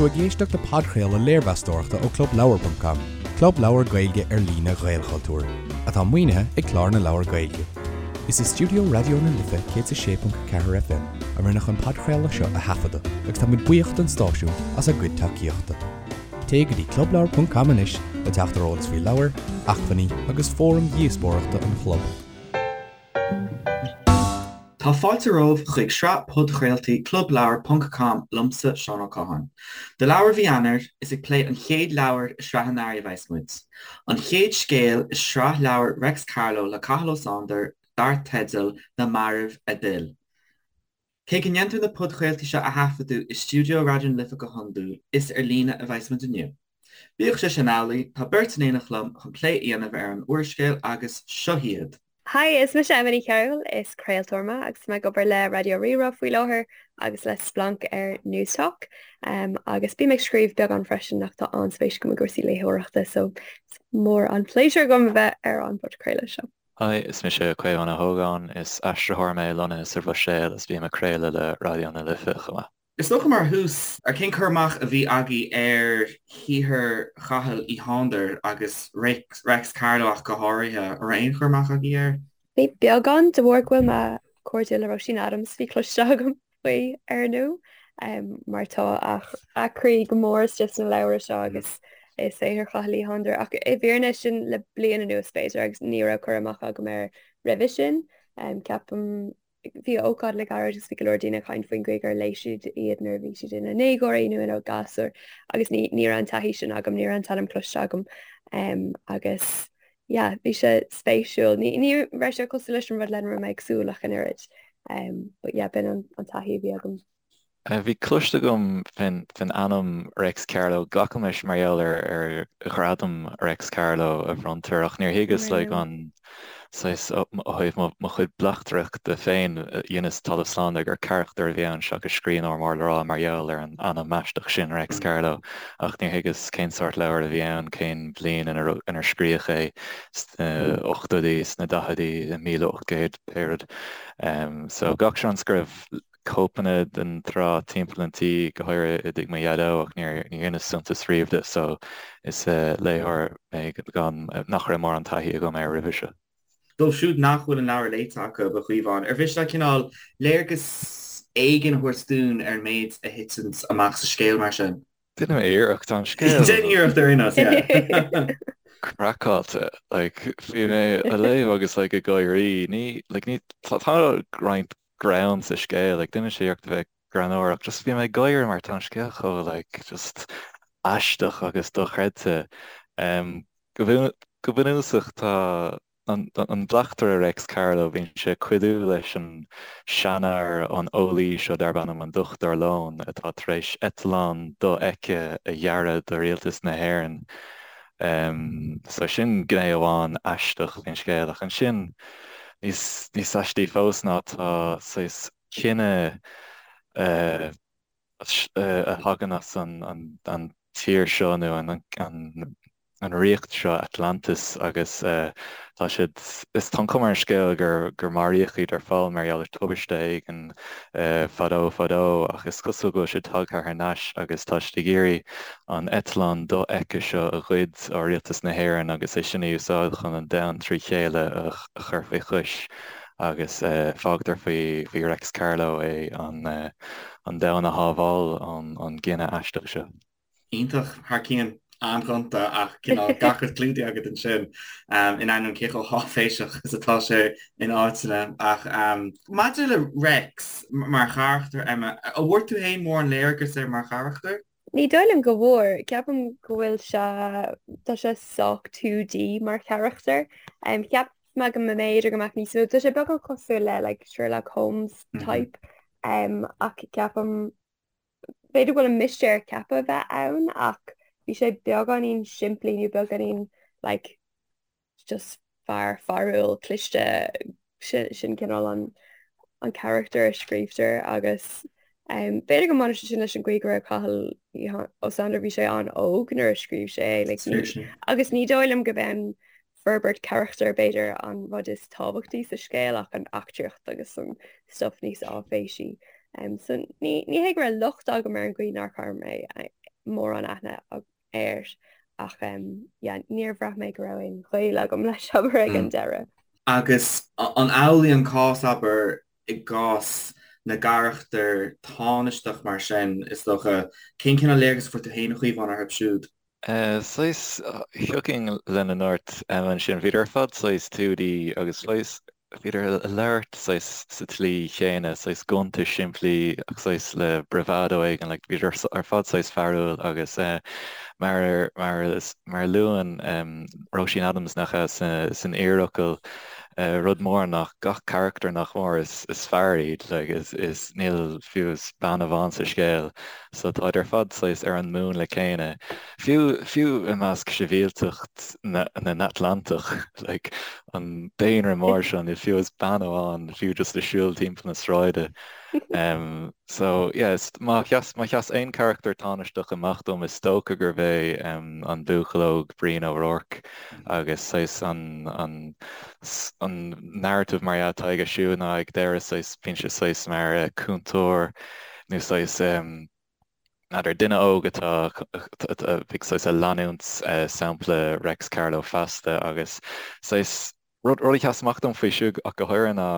tú ag éisteacht le podchraoladh léirmheastóireachta ó ClubLeabhar.com, club leabhar Gaeilge ar líne Ghaelchultúir, atá maoinithe ag Clár na Leabhar Gaeilge. Is i stiúideo Raidió na Life 106.4 FM a rinneadh an podchraoladh seo a thaifeadadh agus tá muid buíoch don stáisiún as a gcuid tacaíochta. Téigh go dtí clubleabhar.com anois le teacht ar eolas faoi leabhair, acmhainní agus fóraim dhíospóireachta an chlub. Tá fáilte romhaibh chuig sraith podchraoltaí Clubleabhar ponc com liomsa, Seán Ó Catháin. Do leabhar mhí Eanáir, is ag plé an chéad leabhar i sraith an earraigh a bheas muid. An chéad scéal i sraith leabhar Reics Carló le Cathal Ó Sándair dar teideal Na Mairbh a D'fhill. Cé go ndéantar na podchraoltaí seo a thaifeadadh i stiúideo Raidió na Life go hiondúil, is ar líne a bheas muid inniu. Bíodh sé sin amhlaidh, tá beirt in éineacht liom chun plé a dhéanamh ar an úrscéal agus seo hiad. Hi, is mise Emma Ní Chearúil, is craoltóir mé agus tá mé ag obair le Raidió Rí-Rá faoi láthair agus le Splanc ar Newstalk. Agus bím ag scríobh beagán freisin ach tá an-spéis agam i gcúrsaí léitheoireachta so is mór an pléisiúr agam a bheith ar an bpodchraoladh seo. Hi, is mise Caomhán Ó hÓgáin, is aistritheoir mé lonnaithe sa Bhruiséil is bím ag craoladh le Raidió na Life chomh maith. Is dócha mar thús, ar cén cur amach a bhí agaibh ar shaothar Chathail Uí Shándair agus Reics Carló ach go háirithe? An raibh aon chur amach agaibh air? Bhí beagán, de bharr go bhfuil mé cairdiúil le Róisín Adams, bhí cloiste agam faoi ar ndóigh, mar tá a croí go mór istigh sna leabhra seo agus i saothar Chathail Uí Shándair ach i bhfírinne sin le bliain anuas b'fhéidir agus ní raibh cur amach agam air roimhe sin. Ceapaim Bhí ócáid le gairid agus bhí go leor daoine ag caint faoin gcaoi gur léigh siad iad nuair a bhí siad ina ndéagóirí nó ina gasúir agus ní ní raibh an taithí sin agam, ní raibh an t-ainm cloiste agam agus yeah, bhí sé spéisiúil. Ní ní raibh sé cosúil leis an rud lena raibh mé ag súil ach an oiread. But yeah, b'in an an taithí a bhí agam. Bhí cloiste agam faoin ainm Reics Carló, glacaim leis mar gheall ar ghradam Reics Carló a bhronntar, ach níor thuigeas like an saghas ó thaobh mo chuid bleachtaireachta féin, dheineas talamh slán de gur carachtar a bhí ann seachas scríbhneoir mór le rá mar gheall ar an ainm aisteach sin Reics Carló, ach níor thuigeas cén sórt leabhair a bhí ann, cén bhliain inar scríodh é, sna ochtóidí, sna daicheadaí, i 1800, pé rud. So gach seans go raibh cóipeanna den tsraith timpeall an tí, go háirithe i dtigh mo dhaideo, ach níor dheineas suntas riamh de, so is léitheoir mé gan, nach raibh mórán taithí agam air roimhe seo. Dóibh siúd nach bhfuil an leabhar léite acu, a Chaomháin, ar mhiste leat cineál léargas éigin a thabhairt dúinn ar an méid a thiteann amach sa scéal mar sin? Déanfaidh mé iarracht, tá an scéal. Déan iarracht ar aon nós, yeah. craiceáilte, like, bhí mé á léamh agus like ag gáirí, ní, like ní, tá roinnt greann sa scéal, like déanann sé iarracht a bheith greannmhar ach just bhí mé ag gáire mar tá an scéal chomh like just aisteach agus dochreidte. Um, go go bunúsach tá an, an bleachtaire Reics Carló, bíonn sé ag cuidiú leis an seanfhear an eolaí seo darb ainm an Dochtúir Lón atá tar éis eitleán dofheicthe a dhearadh do rialtas na hÉireann. So sin gné amháin aisteach faoin scéal ach ansin níos níos aistí fós ná tá saghas cine a thagann as an an tír seo nó an an an ríocht seo Atlantis agus tá siad is tá an chuma ar an scéal gur gur maraíodh iad ar ball mar gheall ar tubaiste éigin fadó fadó ach is cosúil go bhfuil siad tagtha thar n-ais agus tá siad ag iarraidh an eitleán dofheicthe seo a ghoid ó rialtas na hÉireann agus é sin a úsáid chun an domhan trí chéile a chur faoi chois agus fágtar faoi Reics Carló é an domhan a shábháil ón gcine aisteach seo. Iontach, thar cionn. An-ghonta ach cineál gach rud clúdaithe agat ansin, in ainneoin cé chomh háiféiseach is atá sé in áiteanna. Ach maidir le Reics mar charachtar, Emma, an bhfuair tú féin mórán léargas air mar charachtar? Ní dóigh liom go bhfuair. Ceapaim go bhfuil sé, tá sé sách 2D mar charachtar. Cheap mé go mb'fhéidir go mbeadh níos mó, tá sé beagán cosúil le like Sherlock Holmes type ach ceapaim b'fhéidir go bhfuil an mistéir ceaptha a bheith ann ach bhí sé beagáinín simplí nó beagáinín like just fear fearúil cliste sin cineál an an carachtar a scríobhtar agus um, b'fhéidir go mbaineann sé sin leis an gcaoi go raibh Cathal Ó Sándair bhí sé an-óg nuair a scríobh sé é like, ní, agus ní dóigh liom go b'é forbairt carachtair b'fhéidir an rud is tábhachtaí sa scéal ach an eachtraíocht agus an stuff níos áiféisí. Um, so ní, ní hé go raibh locht agam ar an gcaoi nár chuir mé. mórán aithne air ach yeah níor bhraith mé go raibh aon ghaol agam leis abair ag an deireadh. Agus an amhlaidh an cás abair i gcás na gcarachtar tánaisteach mar sin is dócha, cén cineál léargas a fuair tú féin a Chaomháin orthu siúd? Saghas, thiocfainn lena ndúirt Emma ansin, bhíodar ar fad saghas 2D agus saghas, bhíodar ag labhairt saghas sa tslí chéanna, saghas gonta simplí ach saghas le bravado éigin, like bhíodar ar fad saghas fearúil agus mar, mar, mar a luann Róisín Adams nach ea san iarfhocal, rud mór ná gach carachtar nach mór is, is fear iad, like is, is níl fiú is bean amháin sa scéal. So táid ar fad saghas ar an múnla céanna. Fiú, fiú i measc sibhialtacht na nAtlantach, like an daonra mór seo, níl fiú is bean amháin, fiú just ag siúl timpeall na sráide. Um, so yeah, is, má sheas, má sheas aon charachtar tánaisteach amach dom, is dócha gurbh é um, an buachaill óg Brian O'Rourke agus saghas an, an, an narrative mar dhea atá aige siúd ná ag deireadh saghas, bíonn sé saghas mar uh, cúntóir nó saghas n'fheadar, duine óg atá ag saghas ag leanúint sampla Reics Carló feasta agus saghas rud a sheas amach dom faoi siúd ach go háirithe ná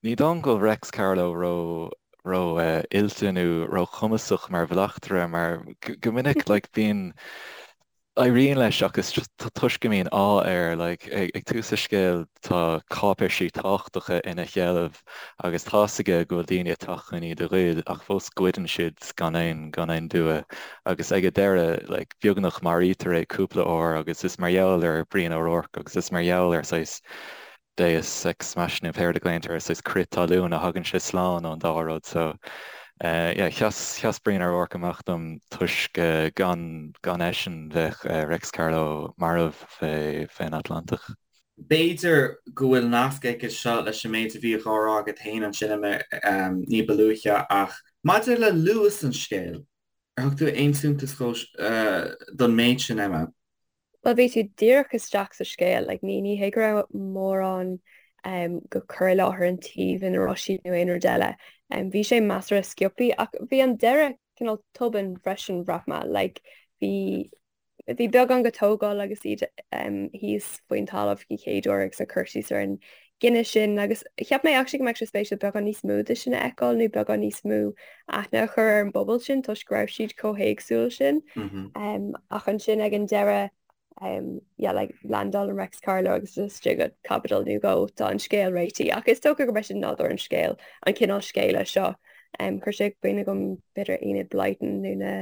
ní dóigh liom go bhfuil Reics Carló ró ró oilte nó ró chumasach mar bhleachtaire mar go minic like bíonn Éiríonn leis ach is just toisc go mbíonn ádh air, like, ag tús an scéil tá cáipéisí tábhachtacha ina sheilbh agus tá's aige go bhfuil daoine ag teacht chun iad a ghoid ach fós goideann siad gan aon, gan aon dua agus ag an deireadh, like, beagnach maraítear é cúpla uair agus is mar gheall ar Brian O'Rourke agus is mar gheall ar saghas deus ex machina pé rud a ghlaonn tú air, saghas crith talún a thagann sé slán ón dá rud so yeah sheas sheas Brian O'Rourke amach dom toisc gan gan eisean bheadh Reics Carló marbh fé fén Atlantach. B'fhéidir go bhfuil nasc aige seo leis an méid a bhíodh á rá agat féin ansin Emma ní ba luaithe ach maidir le luas an scéil, ar thug tú aon suntas don méid sin Emma? Bhuel bhí tú díreach isteach sa scéal, like ní ní hé go raibh mórán um, go cur i láthair an tsuímh ina raibh siad nó aon rud eile. Um, bhí sé measartha sciobtha ach bhí an deireadh cineál tobann freisin bhraith mé, like bhí bhí beagán go tógáil agus iad um, thíos faoin talamh den chéad uair agus an cur síos ar an gcinneadh sin agus cheap mé actually go mbeadh sé spéisiúil beagán níos mó de sin a fheiceáil nó beagán níos mó aithne a chur ar an bpobal sin toisc go raibh siad chomh héagsúil sin. Um, ach ansin ag an deireadh um, yeah, like, landálann Reics Carló agus istigh go caibidil nó dhó tá an scéal réitithe ach is dócha gurb é sin nádúr an scéil an cineál scéala seo. Um, chuir sé i gcuimhne dom b'fhéidir Enid Blyton nó na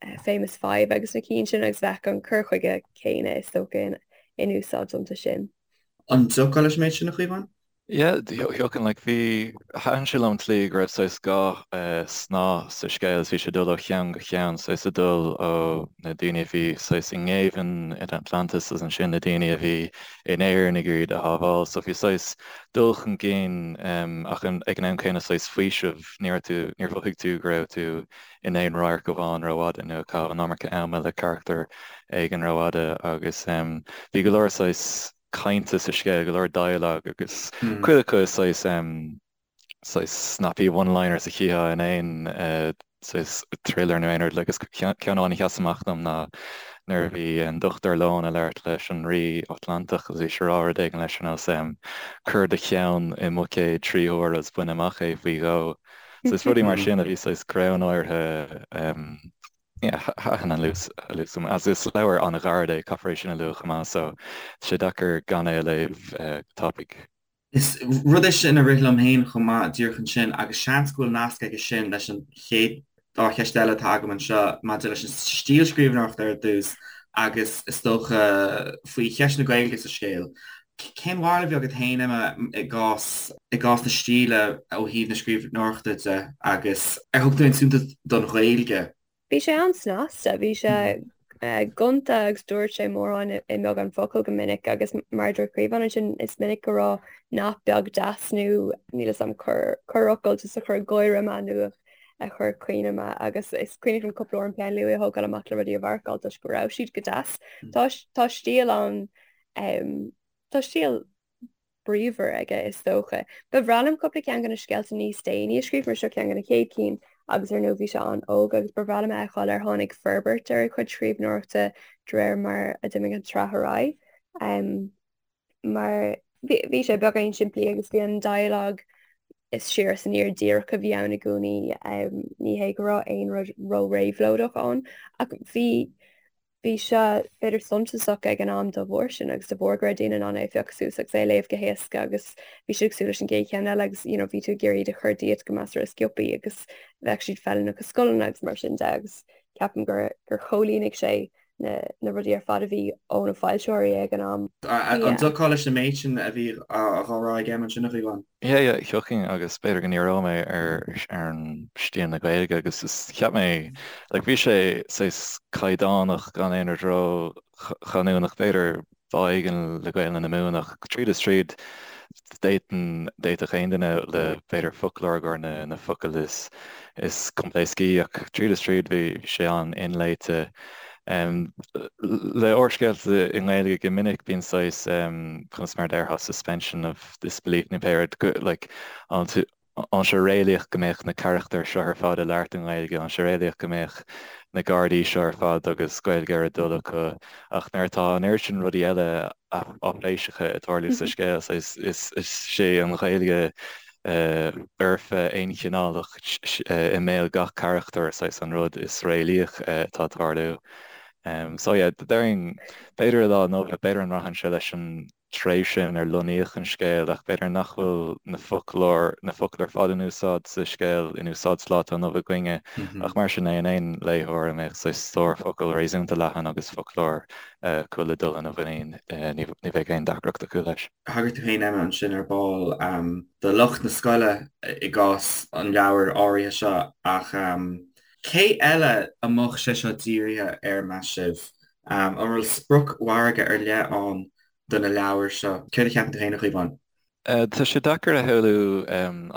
uh, Famous Five agus na cinn sin agus bheadh an cur chuige céanna is dócha in, in úsáid iontu sin. An dtiocfá leis an méid sin, a Chaomháin? Yeah, thiocfainn, like, bhí, thaitin sé liom an tslí go raibh saghas dhá snáth sa scéal is bhí sé ag dul ó cheann go ceann, saghas ag dul ó na daoine a bhí saghas i ngéibheann in Atlantis agus ansin na daoine a bhí in Éirinn ag iarraidh iad a shábháil. So bhí saghas dul chun cinn ach ag an am céanna saghas faoiseamh, ní raibh tú, níor mhothaigh tú go raibh tú in aon radharc amháin rófhada nó ag caitheamh an iomarca ama le carachtar éigin rófhada agus bhí go leor saghas cainte sa scéal, go leor dialogue agus cuid acu saghas saghas snappy one-liners a chífeá in aon saghas thriller nó aon rud like agus ceann amháin a sheas amach dom ná nuair a bhí an Dochtúir Leon ag labhairt leis an Rí Atlantach agus bhí sé ag rá rud éigin leis ar nós cuir do cheann i mbuicéad 3 huaire agus bain amach é faoi dhó. So is rudaí mar sin a bhí saghas greannmhar yeah, thaitin an luas luas liom. Agus is leabhar an-ghairid é, caithfear é sin a lua chomh maith, so tá sé deacair gan é a léamh go tapaidh. Is rud é sin a rith liom féin chomh maith díreach ansin agus seans go bhfuil nasc aige sin leis an chéad dá cheist eile atá agam anseo maidir leis an stíl scríbhneoireachta ar dtús agus is dócha faoi cheist na Gaeilge sa scéal. Cén bharúil a bhí agat féin, Emma, i gcás i gcás na stíle ó thaobh na scríbhneoireachta de agus ar thug tú aon suntas don Ghaeilge? Bhí sé an-snasta, bhí sé gonta agus dúirt sé mórán i mbeagán focal go minic agus mar a dúirt Caomhán ansin is minic go raibh nath beag deas nó níl 'fhios a'm corrfhocal just a chuir gáire mé nó a chuir caoineadh mé agus is cuimhin liom cúpla uair an peann luaidhe a thógáil amach le rudaí a mharcáil toisc go raibh siad go deas. Tá tá stíl an tá stíl bríomhar aige is dócha. Ba bhreá liom cúpla ceann de na scéalta níos déanaí a scríobh mar seo ceann de na chéad cinn. agus ar ndóigh bhí sé an-óg agus ba bhreá liom a fheiceáil ar tháinig forbairt ar a chuid scríbhneoireachta de réir mar a d'imigh an tsraith ar aghaidh. Mar bhí sé beagáinín simplí agus bhí an dialogue is siar is aniar díreach a bhí ann i gcónaí. Ní hé go raibh aon rud ró-réabhlóideach ann ach bhí bhí sé b'fhéidir suntasach ag an am dá bharr sin agus de bharr go raibh daoine in ann é a phiocadh suas agus é a léamh go héasca agus bhí siad ag súil leis an gcéad cheann eile agus you know bhí tú ag iarraidh iad a chur díot go measartha sciobtha agus bheadh siad feiliúnach i scoileanna agus mar sin de agus ceapaim gur gur chomhlíonaigh sé na na rudaí ar fad a bhí ó na foilsitheoirí ag an am. An dtiocfá leis an méid sin a bhí á rá ag Emma ansin a Chaomháin? Yeah, yeah, thiocfainn agus b'fhéidir go ndíreoidh mé ar ar an stíl na Gaeilge agus is cheap mé like bhí sé saghas caighdeánach gan aon rud ró-chanúnach, b'fhéidir bá éigin le Gaelainn na Mumhan ach tríd is tríd d'fhéadfainn, d'fhéadfadh aon duine le b'fhéidir foclóir gur na na focail is is coimpléascaí ach tríd is tríd bhí sé an-inléite. Le úrscéalta i nGaeilge go minic bíonn saghas conas mar a déarfá suspension of disbelief nó pé rud go like an an sé réalaíoch go mbeadh na carachtair seo ar fad ag labhairt i nGaeilge, an sé réalaíoch go mbeadh na Gardaí seo ar fad agus Gaeilge ar a dtoil acu ach nuair atá an oiread sin rudaí eile áiféiseacha ag tarlú sa scéal is is sé an Ghaeilge fhoirfe aonchineálach i mbéal gach carachtar saghas an rud is réalaíoch atá ag tarlú. So yeah, déarfainn b'fhéidir i lá inniu, b'fhéidir an mbraitheann sé leis an tréimhse inar lonnaíodh an scéal ach b'fhéidir nach bhfuil na foclóir, na focail ar fad in úsáid sa scéal in úsáid sa lá atá inniu againne ach mar sin é, aon léitheoir a mbeadh saghas stór focal réasúnta leathan agus foclóir acu le dul ina mhuinín ní bheidh aon deacracht acu leis. Thagair tú féin, Emma, ansin ar ball do lucht na scoile i gcás an leabhair áirithe seo ach cé eile a mbeadh sé seo dírithe air, meas sibh? An bhfuil spriocmhargadh ar leith ann do na leabhair seo? Céard a cheapann tú féin, a Chaomháin? Tá sé deacair a shamhlú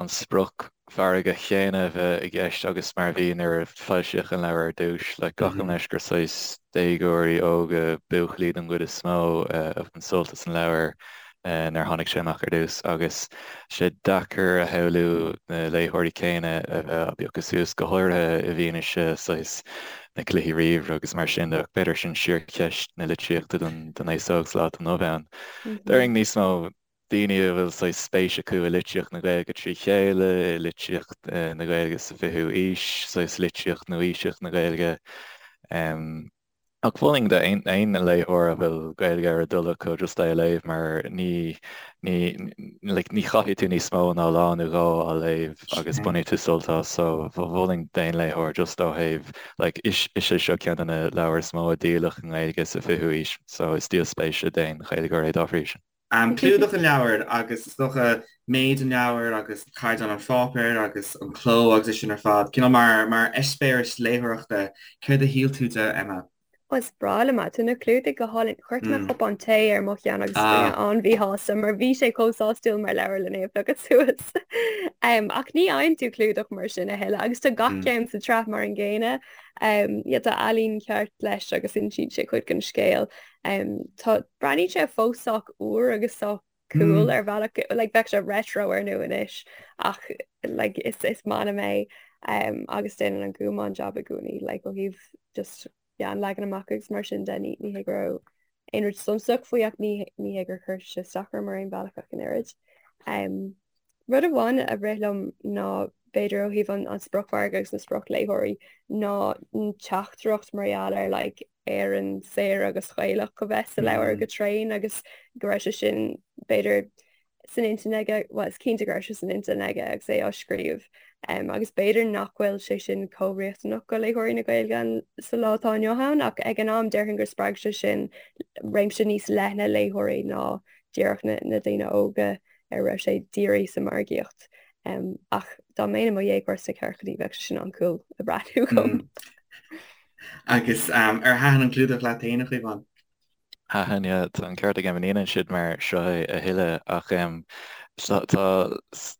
an spriocmhargadh chéanna a bheith i gceist agus mar a bhí nuair a foilsíodh an leabhar ar dtús. Like, glacaim leis gur saghas déagóirí óga, buachaillí den gcuid is mó, a bhain sult as an leabhar nuair a tháinig sé amach ar dtús agus sé deacair a shamhlú na léitheoirí céanna a bheith á bpiocadh suas, go háirithe i bhfianaise saghas na cluichí ríomhaire agus mar sin de. Ach b'fhéidir sin síorcheist na litríochta don aos óg sa lá atá inniu ann. Déarfainn níos mó daoine a bhfuil saghas spéis acu i litríocht na Gaeilge trí chéile, i litríocht na Gaeilge sa 20ú aois, saghas litríocht nua-aoiseach na Gaeilge. Ach mholfainn d'aon léitheoir a bhfuil Gaeilge ar a dtoil acu just é a léamh mar ní, ní, like, ní chaithfidh tú níos mó ná lá nó dhó á léamh agus bainfidh tú sult as. So mholfainn d'aon léitheoir just ó thaobh, like, is, is é seo ceann de na leabhair is mó a díoladh i nGaeilge sa 20ú aois so is díol spéise d'aon Ghaeilgeoir é dá bhrí sin. Clúdach an leabhair agus is dócha méid an leabhair agus caighdeán an pháipéir agus an cló agus é sin ar fad, cineál mar mar eispéireas léitheoireachta, céard a shíl tú de, Emma? Ó, is breá liom é. Tá na clúdaigh go hálainn. Chuir mé cupán tae ar mo cheann agus bhí mé an-mhíshásta mar bhí sé chomh sásúil mar leabhar lena phiocadh suas. Ach ní fhaigheann tú clúdach mar sin a thuilleadh agus tá gach ceann sa tsraith mar an gcéanna. Yeah, tá ealaín ceart leis agus insíonn sé cuid den scéal. Tá, breathnaíonn sé fós sách úr agus sách cool ar bhealach, like bheadh sé retro ar ndóigh anois ach like is is maith liom é agus déanann an Gúm an-jab i gcónaí like ó thaobh just yeah an leagan amach agus mar sin de ní ní hé go raibh aon rud suntasach faoi ach ní ní hé gur chuir sé isteach orm ar aon bhealach ach an oiread. Rud amháin a rith liom ná b'fhéidir ó thaobh an an spriocmhargadh agus na spriocléitheoirí ná an teachtaireacht mar gheall ar like Éirinn saor agus Ghaelach a bheith sa leabhar go tréan agus go raibh sé sin b'fhéidir san intinn aige, bhuel is cinnte go raibh sé san intinn aige agus é á scríobh um, agus b'fhéidir nach bhfuil sé sin chomh riachtanach go léitheoirí na Gaeilge sa lá atá inniu ann ach ag an am déarfainn gur spreag sé sin réimse níos leithne léitheoirí ná díreach na, na daoine óga ar a raibh sé dírithe sa margaíocht. Um, ach dá mbeinn i mo dhéagóir sna ceathrachaidí bheadh sé sin an-cool a bhreathnú dhom. Agus ar thaitin an clúdach leat féin, a Chaomháin? Thaitin, yeah. Tá an ceart ag Emma, ní dhéanann siad mar seo é a thuilleadh ach tá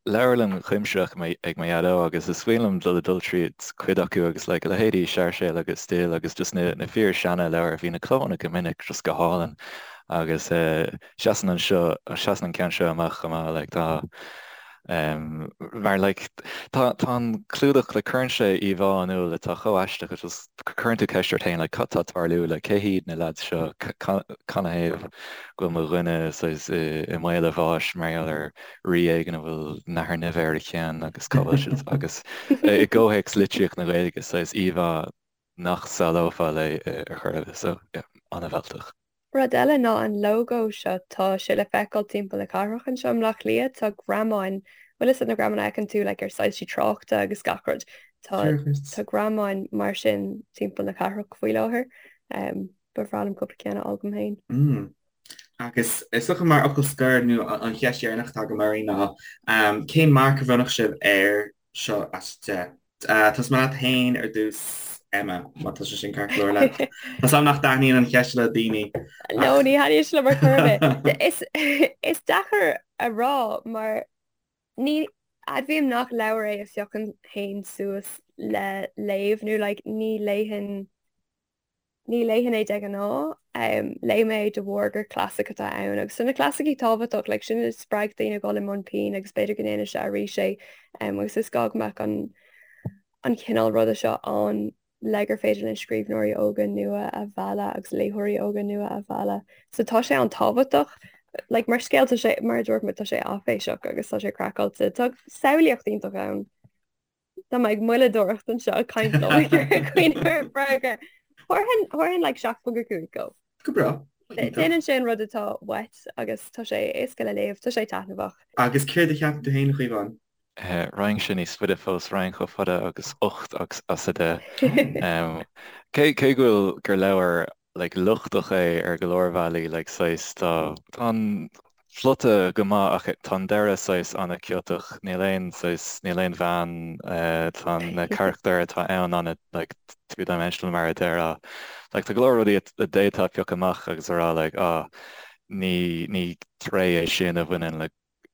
leabharlann chuimsitheach ag mo dhaideo agus is cuimhin liom dul ag dul tríd cuid acu agus like a leithéidí Sáirséal agus Dill agus just na na fíor seana leabhair bhí na clónna go minic just go hálainn agus seasann an seo seasann an ceann seo amach chomh maith like tá. Mar like tá tá an clúdach like cuireann sé íomhá in iúl atá chomh aisteach agus just cuireann tú ceist ort féin like cad tá ag tarlú like cé hiad na lads seo canathaobh go bhfuil mo dhuine saghas i i mbaol a bháis mar gheall ar rí éigin a bhfuil nathair nimhe ar a cheann agus cá bhfuil siad agus i gcomhthéacs litríocht na Gaeilge saghas íomhá nach samhlófá léi ar chor ar bith so yeah an-mhealltach. Rud eile ná an lógó seo, tá sé le feiceáil timpeall na cathrach anseo i mBleá Cliath, tá greamáin, bhfuil fhios agat na greamáin a fheiceann tú like ar soilsí tráchta agus gach rud, tá tá greamáin mar sin timpeall na cathrach faoi láthair. Um, ba bhreá liom cúpla ceann a fháil dom féin. Mm. Agus is dócha mar fhocal scoir nó an cheist dheireanach atá agam oraibh ná um, cén marc a bhronnfadh sibh air seo as 10? Tosóidh mé leat féin ar dtús, Emma, má tá sé sin ceart go leor leat. Tá 's agam nach dtaitníonn an cheist le daoine. No, ní thaitníonn sé liom ar chor ar bith. Is, is deacair a rá mar ní admhaím nach leabhar é a phiocfainn féin suas le léamh nó like ní léifinn Ní léifinn é de ghnáth. Léigh mé é de bharr gur clasaic atá ann agus tá na clasaicí tábhachtach, like sin a spreag daoine a dhul i mbun pinn agus b'fhéidir go ndéanfaidh sé arís é agus is gá go mbeadh an an cineál ruda seo ann le gur féidir linn scríbhneoirí óga nua a mhealladh agus léitheoirí óga nua a mhealladh. So tá sé an-tábhachtach. Like mar scéal tá sé, mar a dúirt mé, tá sé áiféiseach agus tá sé craiceáilte. Tá samhlaíocht iontach ann. Tá mé ag moilleadóireacht anseo ag caint liom ag cuimhneamh ar freagra. Thabharfainn thabharfainn like 7.5 dó. Go breá. Déanann sé an rud atá uait agus tá sé éasca le léamh, tá sé taitneamhach. Agus céard a cheapann tú féin, a Chaomháin? Raghainnse níos faide fós, raghainn chomh fada agus 8 agus as 10. Cé cé go bhfuil gur leabhar like lochtach é ar go leor bealaí like saghas tá tá an plota go maith ach tá an deireadh saghas an-chiotach níl aon saghas níl aon bhean tá na carachtair atá ann ana like two dimensional mar a déarfá like tá go leor rudaí a d'fhéadfá piocadh amach agus a rá like ah ní ní tréith é sin a bhaineann le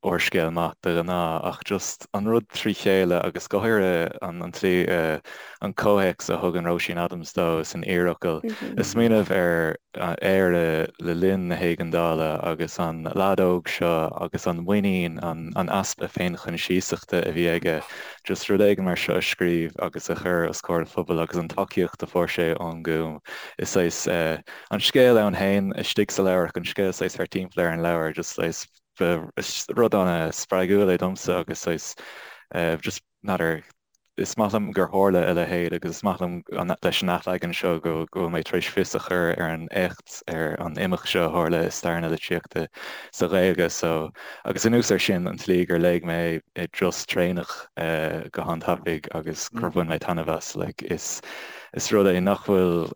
úrscéal maith de ghnáth, ach just an rud trí chéile agus go háirithe an an tslí an comhthéacs a thugann Róisín Adams dó san iarfhocal. Ag smaoineamh ar Éire le linn na héigeandála agus an leaid óg seo agus an mhuinín, an an easpa féinchoinsiasachta a bhí aige just rud éigin mar seo a scríobh agus a chur os comhair an phobail agus an tacaíocht a fuair sé ón nGúm. Is saghas an scéal ann féin istigh sa leabhar ach an scéal saghas thart timpeall ar an leabhar just saghas Ba rud an-spreagúil é domsa agus saghas just n'fheadar, is maith liom gur tharla a leithéid agus is maith liom leis an athleagan seo go bhfuil mé tar éis fios a chur ar an éacht, ar an imeacht seo a tharla i stair na litríochta sa Ghaeilge so agus anuas air sin an tslí gur léigh mé é i dturas traenach go han-tapaidh agus gur bhain mé taitneamh as like is is rud é nach bhfuil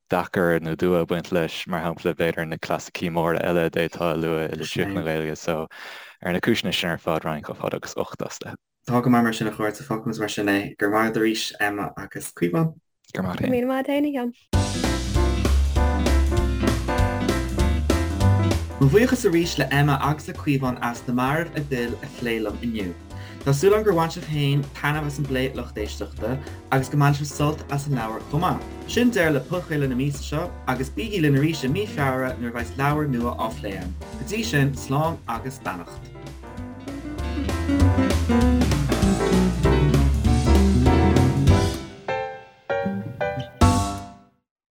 deacair nó dua ag baint leis, mar shampla, b'fhéidir na clasaicí móra eile a d'fhéadfá a lua i litríocht na Gaeilge. So, ar na cúiseanna sin ar fad, raghainn chomh fada agus 8 as 10. Tá go maith mar sin a chairde, fágfaimid mar sin é. Go raibh maith agat arís, Emma agus Caomhán. Go raibh maith agat féin. Go raibh míle maith agat féin, a Sheáin. Mo bhuíochas arís le Emma agus le Caomhán as Na Mairbh a d'Fhill a phlé liom inniu. Tá súil agam gur bhain sibh féin taitneamh as an bplé lucht éisteachta agus go mbainfidh sibh sult as an leabhar chomh maith. Sin deireadh le podchraoladh na míosa seo agus bígí linn arís i mí Feabhra nuair a bheas leabhar nua á phlé againn. Go dtí sin, slán agus beannacht.